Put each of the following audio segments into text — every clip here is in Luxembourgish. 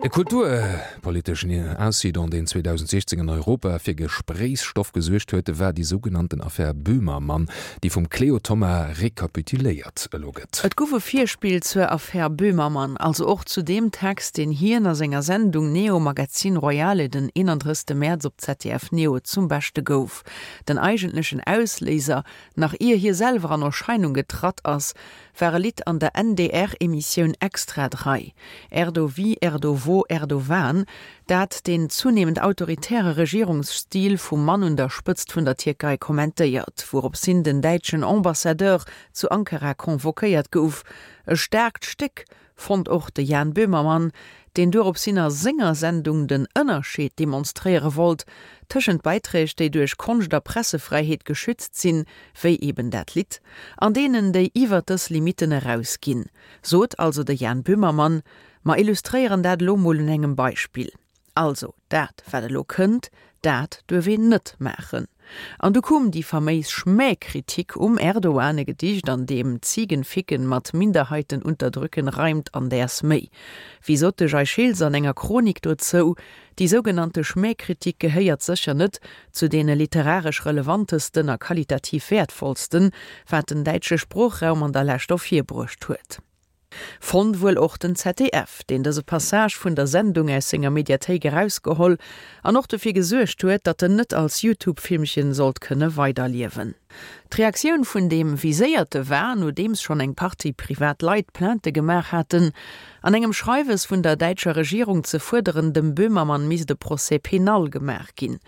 E kulturpoliteschen Incident, deen 2016 an Europa fir Gespréichsstoff gesuergt huet, war déi sougenannten Affär Böhmermann, déi vum Cléo Thoma rekapituléiert elo gëtt. Et gouf e Virspill zur Affär Böhmermann, also och zu deem Text, deen hien a senger Sendung Neo Magazin Royale den 31 Mäerz op ZDF Neo zum Beschte gouf. Den eigentlechen Ausléiser, nach ier hie selwer an Erscheinung getratt ass, war e Lidd an der NDR-Emissioun Extra 3, Erdo wie, Erdo wo, Erdo wan, dat den zunehmend autoritäre Regierungsstil vum Mann un der Spëtzt vun der Tierkei kommentéiert, wouropshin den däitschen Ambassadeur zu Ankara convoquéiert gouf. E staarkt Stéck, fonnt och de Jan Böhmermann, deen dueropshin a senger Sendung den Ënnerscheed demonstréiere wollt tëschent Beiträg, déi duerch Konscht a Pressefräiheet geschützt sinn, wéi eben dat Lidd, an deenen, déi iwwer dës Limitten erausginn. Sot also de Jan Böhmermann. Mer illustréieren dat elo mol un engem Beispill. Also, dat wat elo kënnt, dat duerf een net maachen. An du koum déi faméis Schmähkritik um Erdogan, e Gedicht an deem Ziegenficken mat Minderheiten unterdrücken reimt an däers méi. Wéi sot de Jay Schiltz an enger Chronik dozou, Déi sougenannte Schmähkritik gehéiert sécher net zu deene literaresch relevantesten a qualitativ wäertvollsten, wat den däitsche Sproochraum an der Lescht ervirbruecht huet. Fonnt wuel och den ZDF, deen dëse Passage vun der Sendung aus senger Mediathéik erausgeholl an och dofir gesuergt huet, datt en net als Youtube-Filmchen sollt kënne weiderliewen. D'Reaktioun vun deem Viséierte war, nodeems schonn eng Partie privat Leit Plainte gemaach haten, an engem Schreiwes vun der däitscher Regierung ze fuerderen, dem Böhmermann misst e Procès pénal gemaach ginn.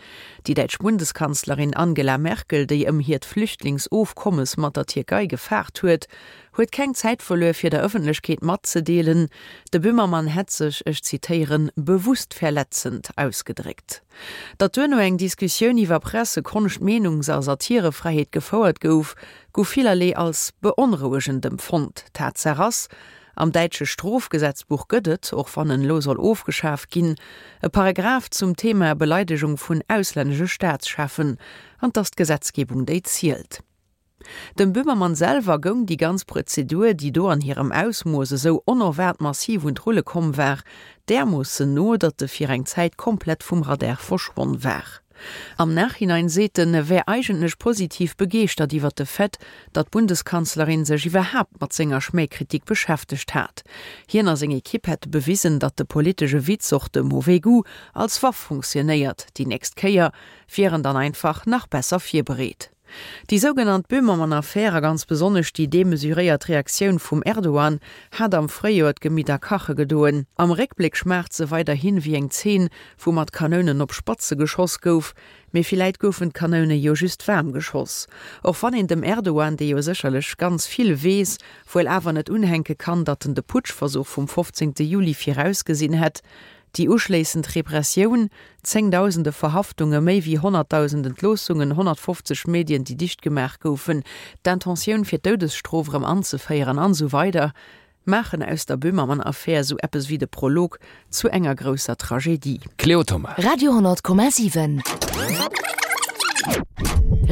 Déi däitsch Bundeskanzlerin Angela Merkel, déi ëm hiert Flüchtlingsofkommes mat der Tierkei gefaart huet, huet keng Zäit verluer fir der Ëffentlechkeet matzedeelen, de Böhmermann hätt sech, ech zitéieren, bewusst verletzend ausgedréckt. Datt duerno eng Diskussioun iwwer Presse-, Konscht-, Meenungs a Satirefräiheet gefouert gouf, gouf villerlee als beonrouegend empfonnt. Tatsaach ass, Am däitsche Strofgesetzbuch gëtt et, och wann en elo soll ofgeschaf ginn, e Paragraph zum Thema Beleidegung vun auslännesche Staatscheffen, an 't ass d'Gesetzgebung déi zielt. Dem Böhmermann selwer goung déi ganz Prozedur, déi do an hirem Ausmooss esou onerwaart massiv un d'Rulle komm war, därmoossen no, datt e fir eng Zäit komplett vum Radar verschwonn war. Am Nachhinein seet en, e wär eigentlech positiv begeeschtert iwwer de Fait, datt d'Bundeskanzlerin sech iwwerhaapt mat senger Schmähkritik beschäftegt hat. Hien a seng Ekipp hätte bewisen, datt de politesche Witz, och de mauvais goût, als Waff funktionéiert. Déi nächst Kéier wier en dann einfach nach besser virbereet. Déi sougenannt Böhmermann-Affär a ganz besonnesch déi demesuréiert Reaktioun vum Erdogan hat am Fréijoer d'Gemidder kache gedoen. Am Réckbléck schmaacht se weiderhin wéi eng Zeen, wou mat Kanounen op Spatze geschoss gouf. Mee villäit goufen d'Kanoune jo just waarm geschoss. Och wann een dem Erdogan, dee jo sécherlech ganz vill weess, wuel awer net unhänke kann, datt en de Putschversuch vum 15 Juli virausgesinn hätt. Déi uschléissend Repressioun, zéngdausende Verhaftunge, méi wéi 100.000 Entloossungen, 150 Medien, déi dicht gemaach goufen, d'Intentioun fir d'Doudesstrof erëm anzeféieren an esou weider maachen aus der Böhmermann-Affär esou eppes wéi de Prolog zu enger grousser Tragedie. Cléo Thoma. Radio 10,7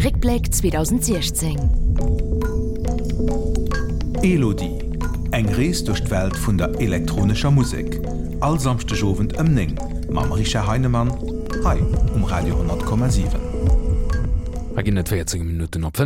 Réckbléck 2016. Elodie, Eng Rees duerch d'Welt vun der elektronescher Musek, all Samschdeg Owend ëm 9 mam Richard Heinemann hei um Radio 10,7. Hei ginn et 14 Minutten op 5.